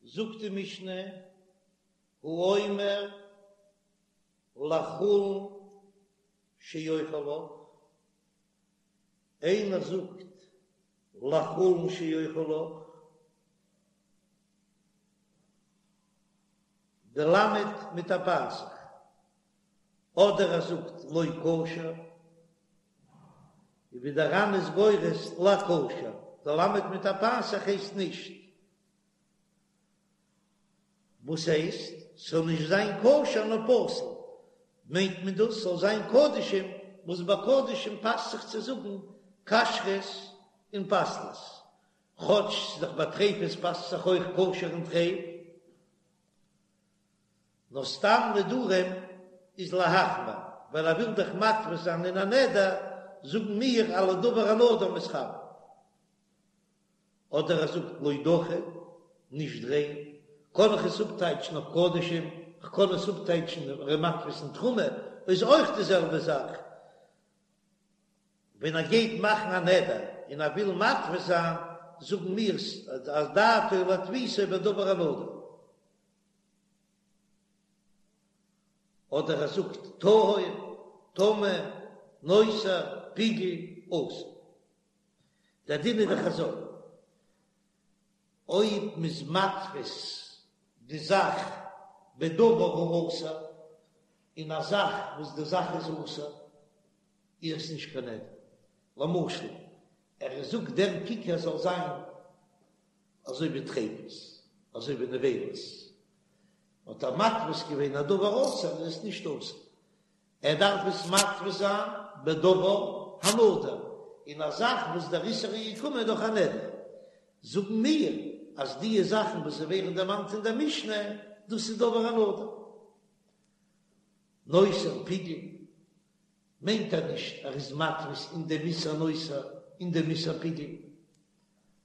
זאגט די משנה, האומר לחולין שאוכל לך, איינער זאגט לחולין שאוכל לך, די למד מיט א פתח, אדער ער זאגט לא כשר, און ווי דער ר"ן איז גורס לכשר, די למד מיט א פתח הייסט נישט. וואס הייסט ס'זאל נישט זיין כשר נאר פסול? מיינט מען דאס ס'זאל זיין קדשים, וואס ביי קדשים פאסט זיך צו זאגן כשרות און פסלות, כאטש ס'איז דאך ביי טריפות פאסט זיך אויך כשר און טרייף, נאר סתם נדרים איז להחמיר, ווייל ער וויל דאך מתפיס זיין אין א נדר, זאגן מיר על הדבר הנדור מתכוין. אדער ער זאגט לא דכי, נישט ריין, קען איך עס אפטייטשן אויף קדשים, כ'קען עס אפטייטשן ער איז מתפיס אין תרומה, איז אויך די זעלבע זאך, ווען ער גייט מאכן א נדר און ער וויל מתפיס זיין, זאגן מיר אז דעתו להתפיסו בדבר הנדור. אדער ער זאגט טהור, טמא, נותר, פיגול, אסור. דער דין איז דאך אזוי, אויב מ'איז מתפיס די זאך בדבר האסור, אין א זאך וואס די זאך איז אסור, איז עס נישט קיין נדר. למשל, ער זאגט דער ככר זאל זיין אזוי ווי טריפות, אזוי ווי נבילות, האט ער מתפיס געווען א דבר אסור, איז עס נישט אסור. ער דארף עס מתפיס זיין בדבר הנדור, אין א זאך וואס דער איסור איז געקומען דורך א נדר. זאגן מיר אז דיע זאכן וואס ווערן דערמאנט אין דער משנה, דאס איז דבר הנדור. נותר פיגול מיינט ער נישט ער איז מתפיס אין דעם איסור נותר אין דעם איסור פיגול,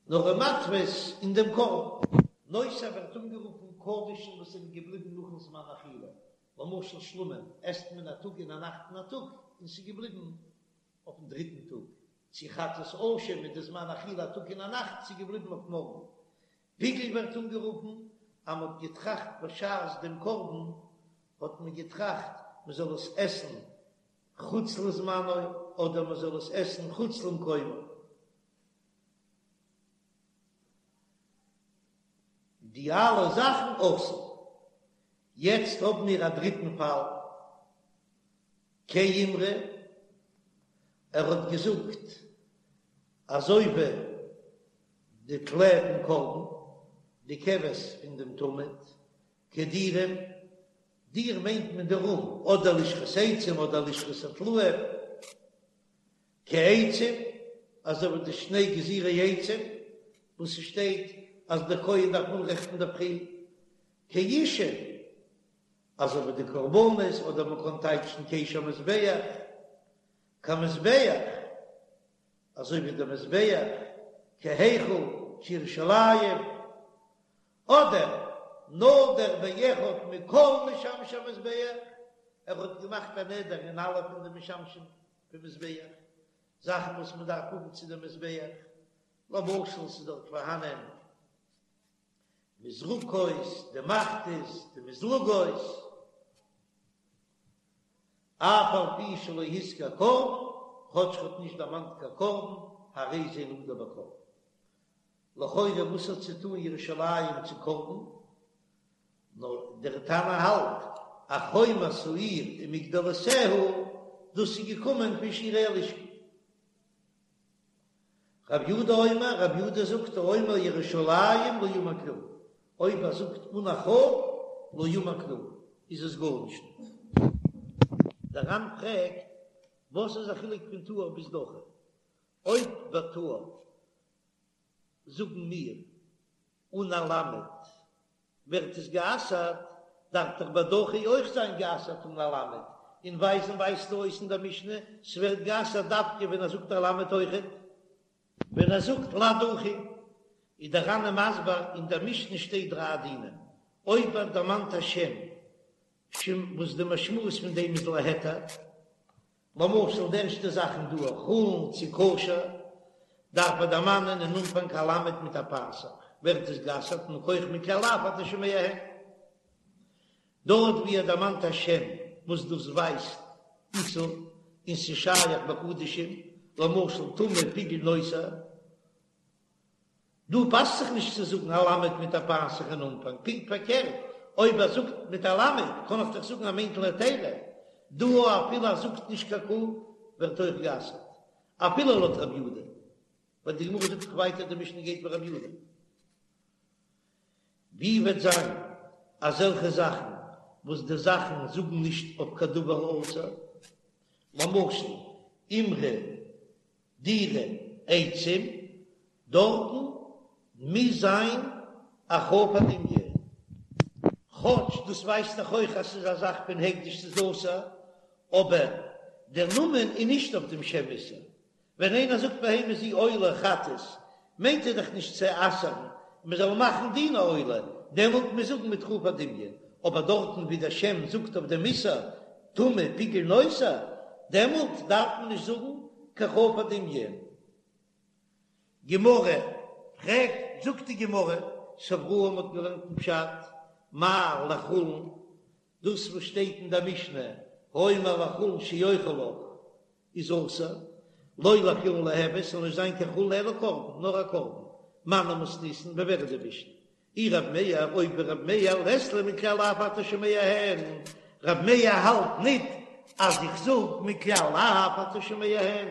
נאר ער מתפיס אין דעם קרבן. נותר ווערט אנגערופן קדשים וואס זענען געבליבן נאכן זמן אכילה, למשל שלמים עסט מען א טאג און א נאכט און א טאג און ס'איז געבליבן אויפן דריטן טאג, צו חטאת אשם מיט די זמן אכילה א טאג און א נאכט ס'איז געבליבן אויף מארגן. פיגול ווערט אנגערופן אז מ'האט געטראכט בשעת דעם קרבן האט מען געטראכט מ'זאל עס עסן חוץ לזמנו אדער מ'זאל עס עסן חוץ למקומו. די אלע זאכן אסור. יעצט האבן מיר א דריטן פאל, כאימרא, ער האט געזאגט אזוי ווי די טלה פון קרבן, די כבש פון דעם תמיד, כדירים, דיר מיינט מען די רום, אדער לשכת עצים אדער לשכת הטלאים. כעצים, אזוי ווי די שני גזירי עצים, וואס ס'שטייט אז דער כהן דארף אנרעכטן אינדערפרי, כאישים, אזוי ווי די קרבנות, אדער מ'קען טייטשן כאש המזבח, כמזבח, אזוי ווי דער מזבח, כהיכל, כירושלים, אדער נדר באחד מכל משמשי המזבח, ער האט געמאכט א נדר אין אלע פון די משמשים פון מזבח, זאכן וואס מען דארף האבן צו דעם מזבח, למשל ס'איז דארט פארהאנען מזרקות, די מחתות, די מזלגות, אף על פי שלא הזכיר קרבן, כאטש ער האט נישט דערמאנט קיין קרבן, הרי זה נדור בקרבן. לכאורה וואס האט צו טאן ירושלים צו קרבן? נאר דער תנא האלט אז חומת העיר ומגדלותיה, דאס איז געקומען פון שירי הלשכה. רב יהודה אומר, רב יהודה זאגט האומר ירושלים לא אמר כלום, אויב ער זאגט אן א כ"ף לא אמר כלום, איז עס גארנישט. דער ר"ן פרעגט, וואס איז א חילוק פון טהור ביז דכי? אויב ביי טהור זאגן מיר אן א למד ווערט עס גע'אסר'ט, דארף דאך ביי דכי אויך זיין גע'אסר'ט אן א למד, און ווייזן ווייזט אויס אין דער משנה ס'ווערט גע'אסר'ט דווקא ווען ער זאגט א למד אויכעט. ווען ער זאגט לדכי, איז דער ר"ן מסביר, אין דער משנה שטייט דריי דינים, אויב ער דערמאנט א שם שם וואס די משמעות פון דעם איז להיתר, למשל די ערשטע זאכן דא חולין צו כשר, דארף ער דערמאנען אין אנפאנג א למד מיט א פתח. ווערט עס גע'אסר'ט מכח מכלל לאו אתה שומע הן. דארט ווי ער דערמאנט א שם וואס דאס ווייזט איסור און ס'איז שייך בקדשים, למשל טמא פיגול נותר, דא פאסט זיך נישט צו זאגן א למד מיט א פתח אין אנפאנג, פונקט פארקערט, אויב ער זאגט מיט א למד קען איך דאך זאגן ער מיינט להיתרא, דא אפילו ער זאגט נישט קיין כף ווערט אויך גע'אסר'ט, אפילו לויט רב יודא, ווייל די גמרא זאגט דאך ווייטער די משנה גייט ווי רב יודא. ווי וועט זיין אזעלכע זאכן וואס די זאכן זאגן נישט אויף קיין דבר אסור, למשל אימרא דירא עצים, דארטן מוז זיין א כף הדמיון, כאטש דאס ווייזט דאך אויך אז ס'איז א זאך פון הקדש ס'איז אסור, אבער דער נאמען איז נישט אויף דעם שם איסור, ווען איינער זאגט בהמה זו עולה חטאת, מיינט ער דאך נישט צו אסר'ן מען זאל מאכן דין עולה, דעמאלט מוז זאגן מיט כף הדמיון, אבער דארטן ווי דער שם זאגט אויף דעם איסור טמא פיגול נותר, דעמאלט דארף מען נישט זאגן קיין כף הדמיון. גמרא פרעגט, זאגט די גמרא, סברוה מ'האט געלערנט אין פשט, מאי לחולין, דאס וואס שטייט אין דער משנה, האומר לחולין שאוכל לך, איז אסור, לא לחולין ליהוי, ס'זאל נישט זיין קיין חולין אלא קרבן, נאר א קרבן, מני מתניתין, ווי ווער איז די משנה? אי רב מאיר, אויב ווי רב מאיר לית ליה מכלל לאו אתה שומע הן, רב מאיר האלט ניט אז איך זאג מכלל לאו אתה שומע הן,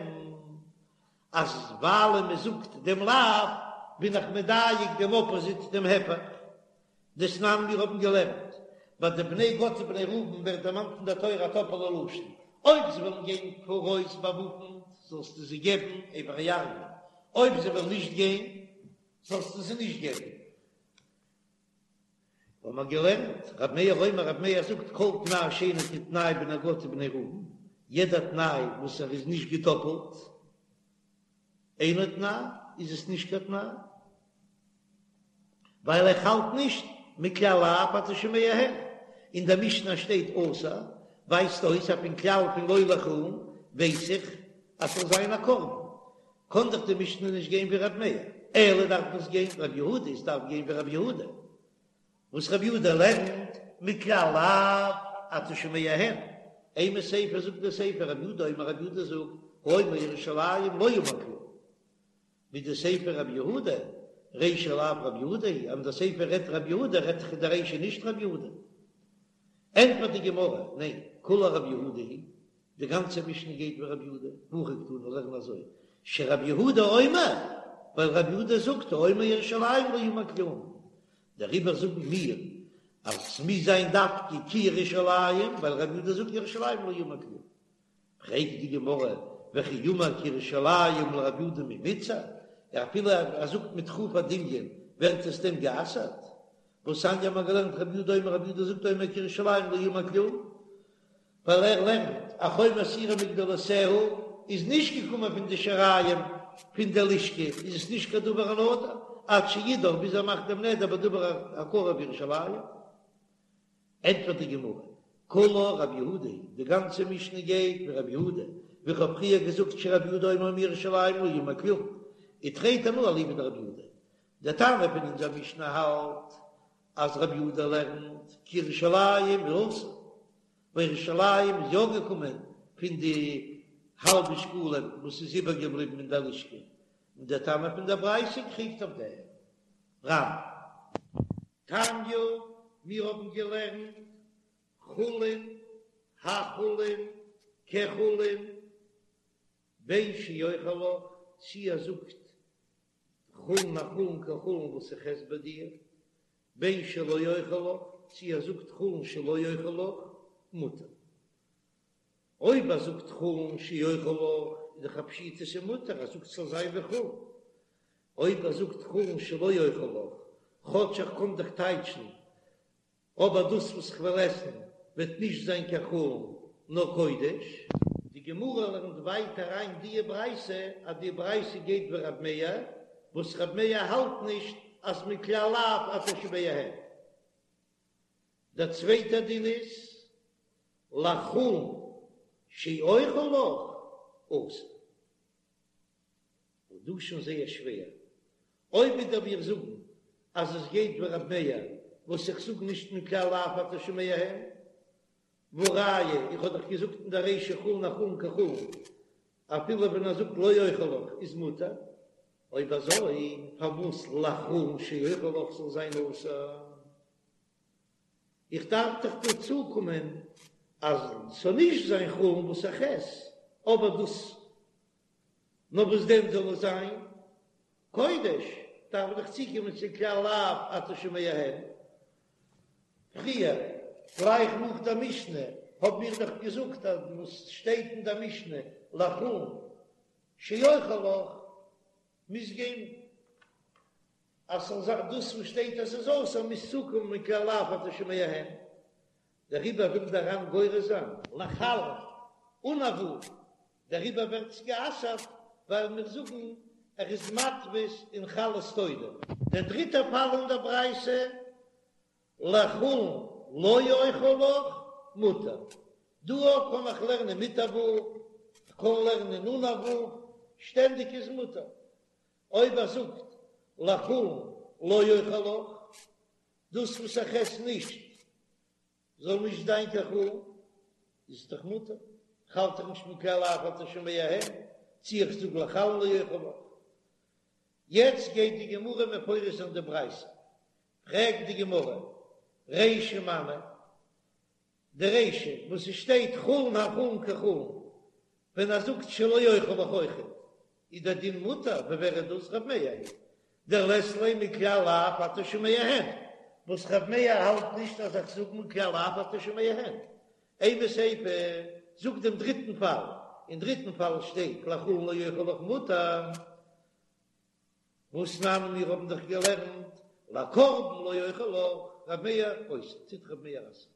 אז ווייל מען זאגט דעם לאו בין איך מדייק דעם אפאזיט דעם הפך. דתנן מיר האבן געלערנט ביי די בני גד ובני ראובן ווערט דערמאנט אין דער תורה א טאפעלע לשון, אויב זיי וועלן גיין פאראויס באוואפנט זאלסטו זיי געבן עבר הירדן, אויב זיי וועלן נישט גיין זאלסטו זיי נישט געבן. האבן מיר געלערנט, רבי מאיר אומר, רבי מאיר זאגט כל תנאי שאינו כתנאי בני גד ובני ראובן, יעדע תנאי וואס ער איז נישט געטאפלט, אינו תנאי, איז עס נישט קיין תנאי, ווייל איך האלט נישט מכלל לאו אתה שומע הן, אין דער משנה שטייט אסור, ווייזט אויס אז פון כלל פון לא לחולין ווייס איך אז ס'זאל זיין א קרבן, קען דאך די משנה נישט גיין ווי ר' מאיר, אלא דארף עס גיין ר' יהודה, עס דארף גיין ווי ר' יהודה, וואס ר' יהודה לערנט מכלל לאו אתה שומע הן, אימא סיפא זאגט די סיפא ר' יהודה אומר ר' יהודה זאגט האומר ירושלים לא אמר כלום, מדסיפא ר' יהודה, רישא לאו ר' יהודה היא, אז די סיפא רעדט ר' יהודה רעדט זיך די רישא נישט ר' יהודה. ענטפערט די גמרא, ניין, כולה ר' יהודה היא, די גאנצע משנה גייט ווי ר' יהודה, והכי קתני לערן אזוי, שר' יהודה אומר, ווייל ר' יהודה זאגט האומר ירושלים לא אמר כלום, דעריבער זאגן מיר אז ס'מוז זיין דווקא כי ירושלים, ווייל ר' יהודה זאגט ירושלים לא אמר כלום. פרעגט די גמרא, וכי אמר כי ירושלים לר' יהודה מי מיתסר, אפילו ער זאגט מיט כף הדמיון ווערט עס דען גע'אסר'ט? והתניא האט מען געלערנט ר' יהודה אומר ר' יהודה זאגט האומר כי ירושלים לא אמר כלום, ווייל ער לערנט אז חומת העיר ומגדלותיה איז נישט געקומען פון די שיריים פון די לשכה איז עס נישט קיין דבר הנדור עד שידור ביז ער מאכט דעם נדר בדבר הקרוי בירושלים. ענטפערט די גמרא, כולה רב יהודה היא, די גאנצע משנה גייט ווי רב יהודה, ווי כ'האב פריער געזאגט שרב יהודה אומר האומר ירושלים לא אמר כלום, ותרי תנאי אליבא דרב יהודה, דער תנא פון אונזער משנה האלט אז רב יהודה לערנט כי ירושלים איז אסור, ווייל ירושלים איז יא געקומען פון די האלבע שקלים וואס איז איבערגעבליבן אין דער לשכה, און דער תנא פון דער ברייתא קריגט אויף דעם רמ. תניא, מיר האבן געלערנט חולין, החולין, כחולין, בין שאוכל לך, צי ער זאגט חולין החולין כחולין וואס איך עס ביי דיר, בין שלא אוכל לך, צי ער זאגט חולין שלא אוכל לך, מותר. אויב ער זאגט חולין שאוכל לך, איז דאך א פשיטא ס'איז מותר, ער זאגט ס'זאל זיין ווי חולין. אויב ער זאגט חולין שלא אוכל לך, כאטש איך קען דאך טייטשן אבער דאס וואס כ'וועל עסן וועט נישט זיין קיין חולין נאר קודש. די גמרא לערנט ווייטער אריין דיע ברייתא אז די ברייתא גייט ווי רב מאיר, וואס רב מאיר האלט נישט אז מכלל לאו אתה שומע הן. דער צווייטער דין איז לחולין שאוכל לך אסור. און דא שוין זייער שווער, אויב ווידער מיר זאגן. אז עס גייט ווי רב מאיר וואס איך זאג נישט מכלל לאו אתה שומע הן, והא ראיה איך האב דאך געזאגט אין דער רישא חולין החולין כחולין אפילו ווען ער זאגט לא אוכל לך איז מותר, אויב אזוי פארוואס לחולין שאוכל לך זאל זיין אסור? איך דארף דאך דא צוקומען אז ס'זאל נישט זיין חולין וואס איך עס, אבער דאס נאר וואס דען זאל עס זיין קודש, דארף איך דאך צוקומען צו כלל לאו אתה שומע הן. פריער, גלייך נאך דער משנה, האבן מיר דאך געזאגט אז וואס שטייט אין דער משנה לחולין שאוכל לך מוז גיין אז ס'זאל זיין דאס וואס שטייט אז ס'איז אסור מוז צוקומען מכלל לאו אתה שומע הן, דעריבער וויל דער ר"ן גורס זיין לחלין אן א ו', דעריבער ווערט עס גע'אסר'ט ווייל מיר זאגן ער איז מתפיס אין חלות תודה. דער דריטער פאל אין דער ברייתא, לחולין לא אוכל לך, מותר. דא אויך קען איך לערנען מיט א ו', כ'קען לערנען אן א ו', שטענדיג איז מותר. אויב ער זאגט לחולין לא אוכל לך, דאס וואס איך עס נישט זאל נישט זיין קיין חולין, איז דאך מותר, כ'האלט דאך נישט מכלל לאו אתה שומע הן, צי איך זאג לחלין לא אוכל לך. יעצט גייט די גמרא מפרש זיין די ברייתא, פרעגט די גמרא, רישא מני, די רישא וואס עס שטייט חולין החולין כחולין, ווען ער זאגט שלא אוכל לך אויכעט, איז דער דין מותר, ווי ווער איז דאס רב מאיר היא דלית ליה מכלל לאו אתה שומע הן, וואס רב מאיר האלט נישט אז איך זאג מכלל לאו אתה שומע הן. אימא סיפא, זאג דעם דריטן פאל, אין דריטן פאל שטייט לחולין לא אוכל לך מותר, והתנן מיר האבן דאך געלערנט לקרבן לא אוכל לך, רב מאיר אוסר, טוט רב מאיר אסר'ן.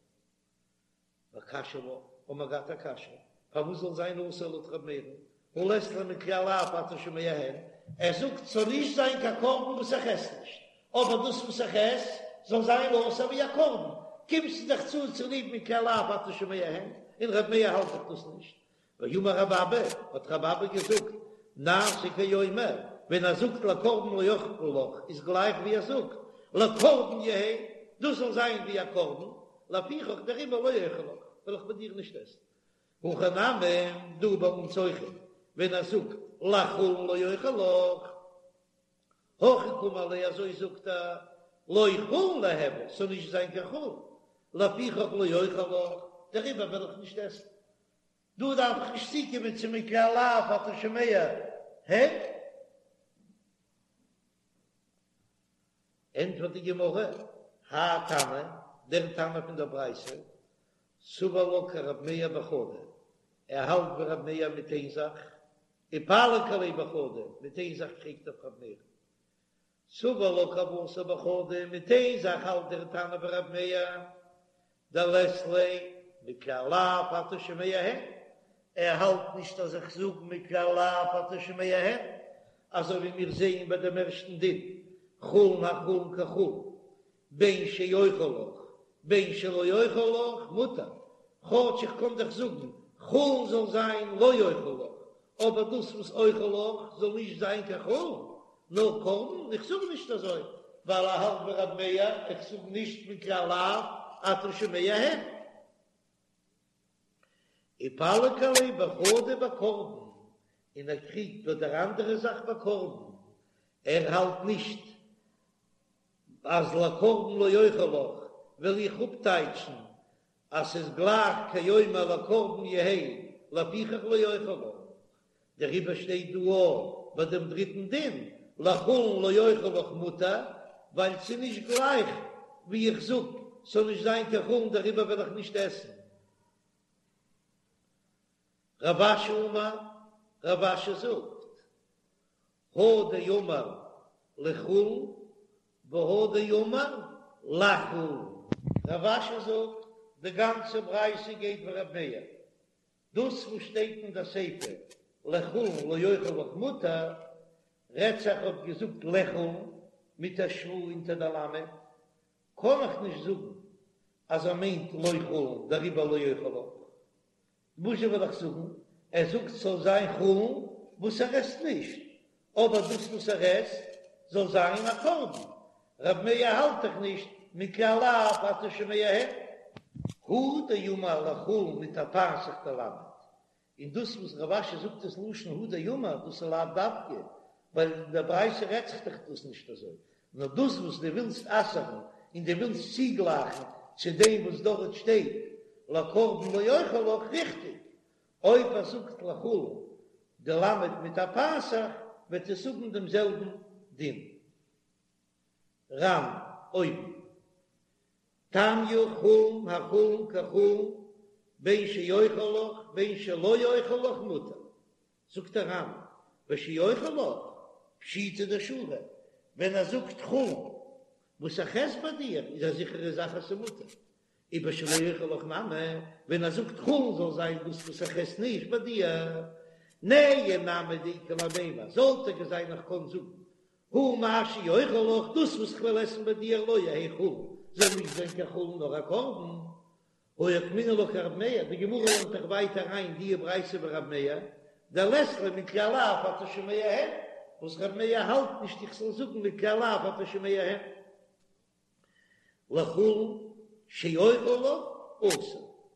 וקשיא לה, האבן מיר געהאט א קשיא, פארוואס זאל זיין אסור לויט רב מאיר'ן, הא לית ליה מכלל לאו אתה שומע הן, ער זאגט ס'זאל נישט זיין קיין קרבן וואס איך עס נישט, אבער דאס וואס איך עס זאל זיין אסור ווי א קרבן, קומסטו דאך צו צוליב מכלל לאו אתה שומע הן, און רב מאיר האלט דאך דאס נישט, ואמר רב אבא, האט רב אבא געזאגט, נעשה כאומר, ווען ער זאגט לקרבן לא אוכל לך, איז גלייך ווי ער זאגט, לקרבן יהא, דאס זאל זיין ווי א קרבן, לפיכך דעריבער לא אוכל לך, וועל איך מיט דיר נישט עסן. הכא נמי, דא ביי אונז אויכעט, ווען ער זאגט לחולין לא אוכל לך, הכי קאמר ליה אזוי זאגט ער, לא חולין ליהוי, ס'זאל נישט זיין קיין חולין, לפיכך לא אוכל לך, דעריבער וועל איך נישט עסן. דא דארף איך נישט צוקומען צו מכלל לאו אתה שומע הן. ענטפערט די גמרא, האי תנא, דער תנא פון דער ברייתא, סבר לה כרב מאיר בחדא, ער האלט ווי רב מאיר מיט איין זאך, ופליג עליה בחדא, מיט איין זאך קריגט ער אויף רב מאיר. סבר לה כוותיה בחדא, מיט איין זאך האלט דער תנא ווי רב מאיר, דלית ליה מכלל לאו אתה שומע הן, ער האלט נישט אז איך זאג מכלל לאו אתה שומע הן, אזוי ווי מיר זעען ביי דעם ערשטן דין, חולין החולין כחולין, בין שאוכל לך בין שלא אוכל לך מותר, כאטש איך קען דאך זאגן חולין זאל זיין לא אוכל לך, אבער דאס וואס אוכל לך זאל נישט זיין קיין חולין, נאר קרבן, איך זאג נישט אזוי ווייל ער האלט ווי רב מאיר, איך זאג נישט מכלל לאו אתה שומע הן. ופליג עליה בחדא בקרבן, און ער קריגט ביי דער אנדערע זאך ביי קרבן, ער האלט נישט אז לקרבן לא אוכל לך וועל איך אפטייטשן אז ס'איז גלייך כאומר לקרבן יהא לפיכך לא אוכל לך, דעריבער שטייט דא אויך ביי דעם דריטן דין לחולין לא אוכל לך מותר, ווייל ס'איז נישט גלייך ווי איך זאג ס'זאל נישט זיין קיין חולין דעריבער וועל איך נישט עסן. רב אשי אמר, רב אשי זאגט, הא דאמר לחולין והא דאמר לחולין. רב אשי זאגט, די גאנצע ברייתא גייט ווי רב מאיר, דאס וואס שטייט אין די סיפא לחולין לא אוכל לך מותר, רעדט זיך האט געזאגט לחולין מיט א שווא אונטער די למד, קען איך נישט זאגן אז ער מיינט לא חולין דעריבער לא אוכל לך. וואזשע וועל איך זאגן? ער זאגט ס'זאל זיין חולין וואס ער עסט נישט, אבער דאס וואס ער עסט זאל זיין א קרבן. רב מאיר האלט דאך נישט מכלל לאו אתה שומע הן. הוא דאמר לחולין מיט א פתח דלמד, און דאס וואס רב אשי זאגט עס לשון הוא דאמר דאס איז לאו דווקא, ווייל אין דער ברייתא רעדט זיך דאך דאס נישט אזוי, נאר דאס וואס דו ווילסט אסר'ן און דו ווילסט צוגלייכן צו דעם וואס דארט שטייט לקרבן לא אוכל לך, ריכטיג, אויב ער זאגט לחולין די למד מיט א פתח וועט עס האבן דעם זעלבן דין. ר"ן אויבן. תניא חולין החולין כחולין בין שאוכל לך בין שלא אוכל לך מותר, זאגט דער ר"ן בשאוכל לך פשיטא דשרי, ווען ער זאגט חולין וואס איך עס ביי דיר איז א זיכערע זאך אז ס'מותר, ובשלא אוכל לך נמי, ווען ער זאגט חולין זאל זיין דאס וואס איך עס נישט ביי דיר, נהי נמי דאיכא למימר, זאל טאקע זיין איך קען זאגן הא מה שאוכל לך, דאס וואס כ'וועל עסן ביי דיר לא יהא חולין, זאל נישט זיין קיין חולין נאר א קרבן. הא אוקימנא לה כרב מאיר, די גמרא לערנט דאך ווייטער אריין די ברייתא ווי רב מאיר, דלית ליה מכלל לאו אתה שומע הן, וואס רב מאיר האלט נישט איך זאל זאגן מכלל לאו אתה שומע הן. לחולין שאוכל לך אסור.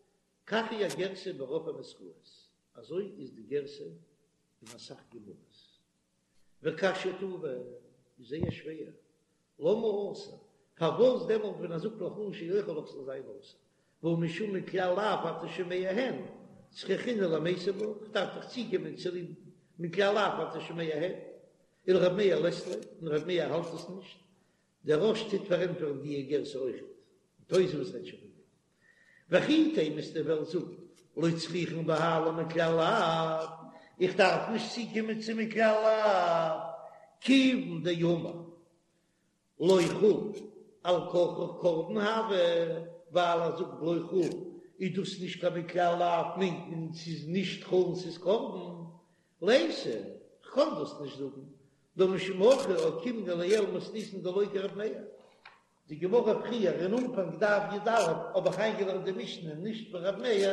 כך היא הגרסה ברוב הנוסחאות, אזוי איז די גרסה אין אסאך גמרות. וקשיא טובא איז זייער שווער, למה אסור? פארוואס דעמאלט ווען ער זאגט לחולין שאוכל לך זאל זיין אסור? והא משום מכלל לאו אתה שומע הן, צריכינן למיתב בה, כ'דארף דאך צוקומען צוליב מכלל לאו אתה שומע הן, ולרב מאיר לית ליה, און רב מאיר האלט עס נישט, דער רא"ש טוט פארענטפערן די גרסה אויכעט, און תוספות רעדט שוין פון דעם. וכי תימא וועסטו וועלן זאגן לא צריכין בהאי למכלל לאו, איך דארף נישט צוקומען צו מכלל לאו, כיוון דאמר לא חולין על כרחך קרבן הוי, ווייל ער זאגט לא חולין איז דאס נישט קיין מכלל לאו מיינט מען ס'איז נישט חולין ס'איז קרבן, ליתא, כ'קען דאס נישט זאגן, דהא משום הכי אוקימנא לעיל מתניתין דלא כרב מאיר. די גמרא פריער אין אנפאנג דף י"א האב איך איינגעלערנט די משנה נישט ווי רב מאיר,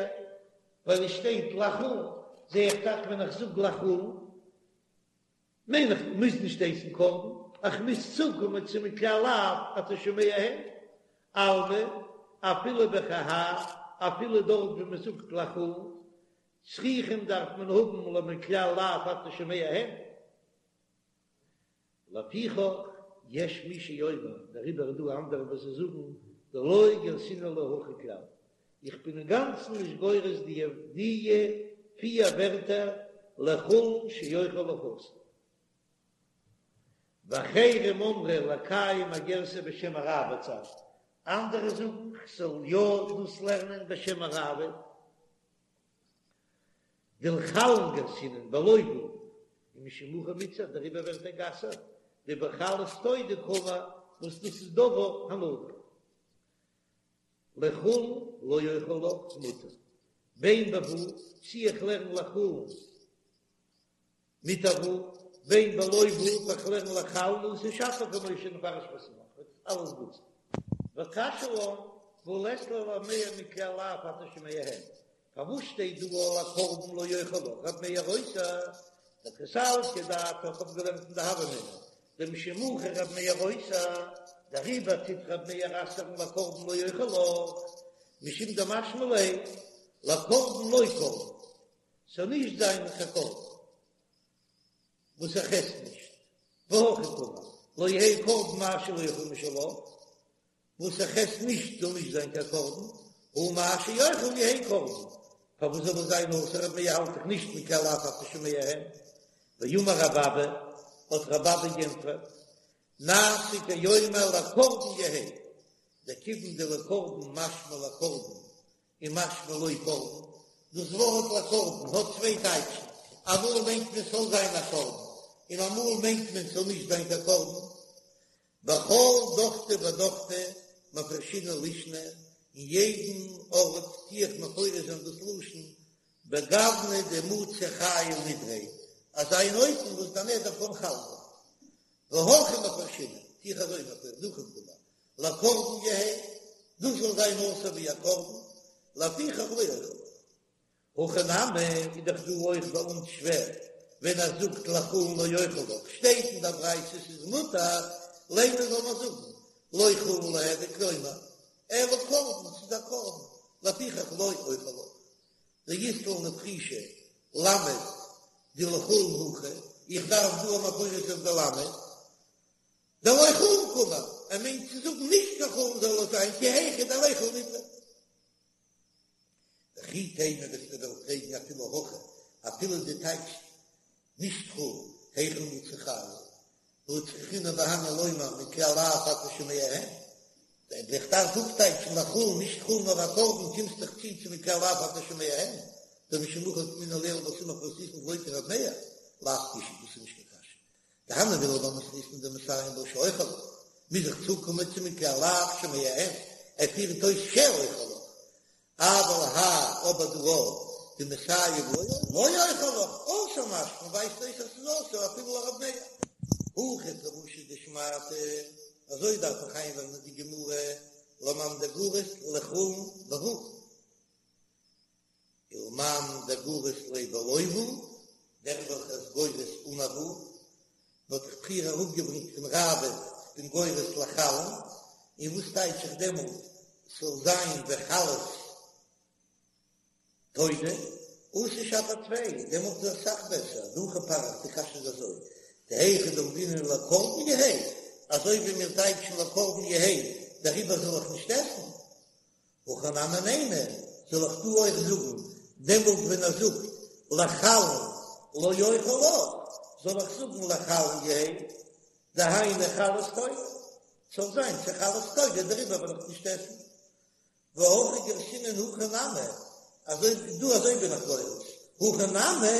ווייל עס שטייט לחולין, זע איך דאך ווען איך זאג לחולין מיין איך מוז נישט הייסן קרבן, איך מוז צוקומען צו מכלל לאו אתה שומע הן, אלמא אפילו בכי האי אפילו דארט ווי מען זאגט לחולין צריכים דארף מען האבן למכלל לאו אתה שומע הן. לפיכך יש מי שאומר, דעריבער איז דא אנדערע וואס זיי זאגן דלא גרסינן לה הכי כלל, איך בין אינגאנצן נישט גורס די די פיר ווערטער לחולין שאוכל לך אסור. ואחרים אמרו לקיים הגרסה בשם הראב"ד, אנדערע זאגן כ'זאל יא דאס לערנען בשם הראב"ד. דלחולין גרסינן בלא וו ומשום הכי מיתסר דעריבער ווערט ער גע'אסר'ט דבחלות תודה קאמר וואס דאס איז דבר הנדור לחולין לא אוכל לך מותר בין בוו צי איך לערן לחולין מיט א וו, בין בלא וו, איך לערן לחלין אתי שפיר כמו שנפרש בסמוך, וועט אלעס גוט זיין. וקשיא לן, והא לית ליה לרב מאיר מכלל לאו אתה שומע הן. פארוואס שטייט דא לקרבן לא אוכל לך רב מאיר אוסר? דקא סלקא דעתך האב געלערנט אין די הוה אמינא דמשום הכי רב מאיר אוסר, דעריבער טוט רב מאיר אסר'ן לקרבן לא אוכל לך, משום דמשמע ליה לקרבן לא קרבן. ס'זאל נישט זיין קיין קרבן וואס איך עס נישט, והכי קאמר, לא יהא קרבן מה שלא אוכל משלך, וואס איך עס נישט זאל נישט זיין קיין קרבן, הא מה שאוכל יהא קרבן, פארוואס זאל עס זיין אסור רב מאיר האלט דאך נישט מכלל לאו אתה שומע הן, ואמר רב אבא, האט רב אבא גענטפערט, נעשה כאומר לקרבן יהא, דכיון דלקרבן משמע לקרבן און משמע לא קרבן, דאס ווארט לקרבן האט צוויי טייטשן, אמאל מיינט מען ס'זאל זיין א קרבן, און אמאל מיינט מען ס'זאל נישט זיין קיין קרבן. בכל דוכתא ודוכתא מפרשינן לישנא, אין יעדן ארט טו איך מפרש זיין דאס לשון בגוונא דמצי חיל נדריה, אזא אן אופן וואס דער נדר קען חל זיין. והכי מפרשינן, טו איך אזוי מפרש, דהכי קאמר, לקרבן יהא, דאס זאל זיין אסור ווי א קרבן, לפיכך לא אוכל לך. הכא נמי איז דאך דא אויך ביי אונז שווער, ווען ער זאגט לחולין לא אוכל לך, שטייט אין דער ברייתא ס'איז מותר, לימא זאל מען זאגן. לא חולין ליהוי כלומר, אלא קרבן, ס'איז א קרבן, לפיכך לא אוכל לך. דאית לן לפרושי למד דלחולין הכא, איך דארף דא א מפרש אויף די למד, דלא חולין קאמר, ער מיינט צו זאגן נישט קיין חולין זאל עס זיין כי היכי דליכול נדרא. וכי תימא וועסטו וועלן פרעגן אפילו הכי, אפילו דו טייטשסט נישט חולין, היכי מצי חיי, והא צריכינן בהני לומר מכלל לאו אתה שומע הן, ווען איך דארף אפטייטשן לחולין נישט חולין נאר א קרבן קומסט דאך צו צו מכלל לאו אתה שומע הן, דמשום הכי אוקימנא לעיל בסמוך למתניתין דלא כר' מאיר, לאו קושיא דאס איז נישט קיין קשיא. דהני מילי במתניתין דמסיים בה שאוכל לך, מוז איך צוקומען צו מכלל לאו שומע הן, ער פירט אויס שאוכל לך, אבל האי אבער דא דמסיים לא אוכל לך, אסור משמע ווייזט אויס אז ס'איז אסור אפילו לרב מאיר. הכי פירושא דשמעתא, אזוי דארף איך איינלערנען די גמרא למאן דגורס לחולין בו' ולמאן דגורס ליה בלא ו', דער וועלכער איז גורס אן א ו', מ'האט דאך פריער אראפגעברענגט פון ראב"ד כ'בין גורס לחלין, און וואס טייטש איך דעמאלט ס'זאל זיין וחלות תודה? אתי שפיר טפי, דעמאלט איז אסאך בעסער, דהכי פריך, די קשיא איז אזוי, דהיכא דאמרינן לקרבן יהא, אזוי ווי מיר טייטשן לקרבן יהא, דעריבער זאל איך נישט עסן, הכא נמי נימא, זאל איך דא אויך זאגן, דעמאלט ווען ער זאגט לחלין לא אוכל לך, זאל איך זאגן לחלין יהא, דהיינו חלות תודה, ס'זאל זיין צו חלות תודה, דעריבער וועל איך נישט עסן. והכי גרסינן הכא נמי, אזוי דא אזוי בין איך גורס, הכא נמי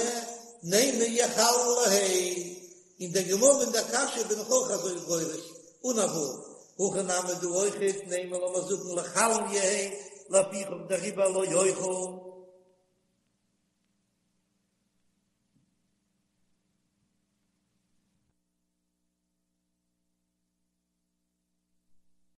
נימא יחלין ליהא, אין דער גמרא אין דער קשיא בין איך אויך אזוי גורס, אן א ו', הכא נמי דא אויכעט נימא לאמיר זאגן לחלין יהא, לפיכך דעריבער לא אוכל.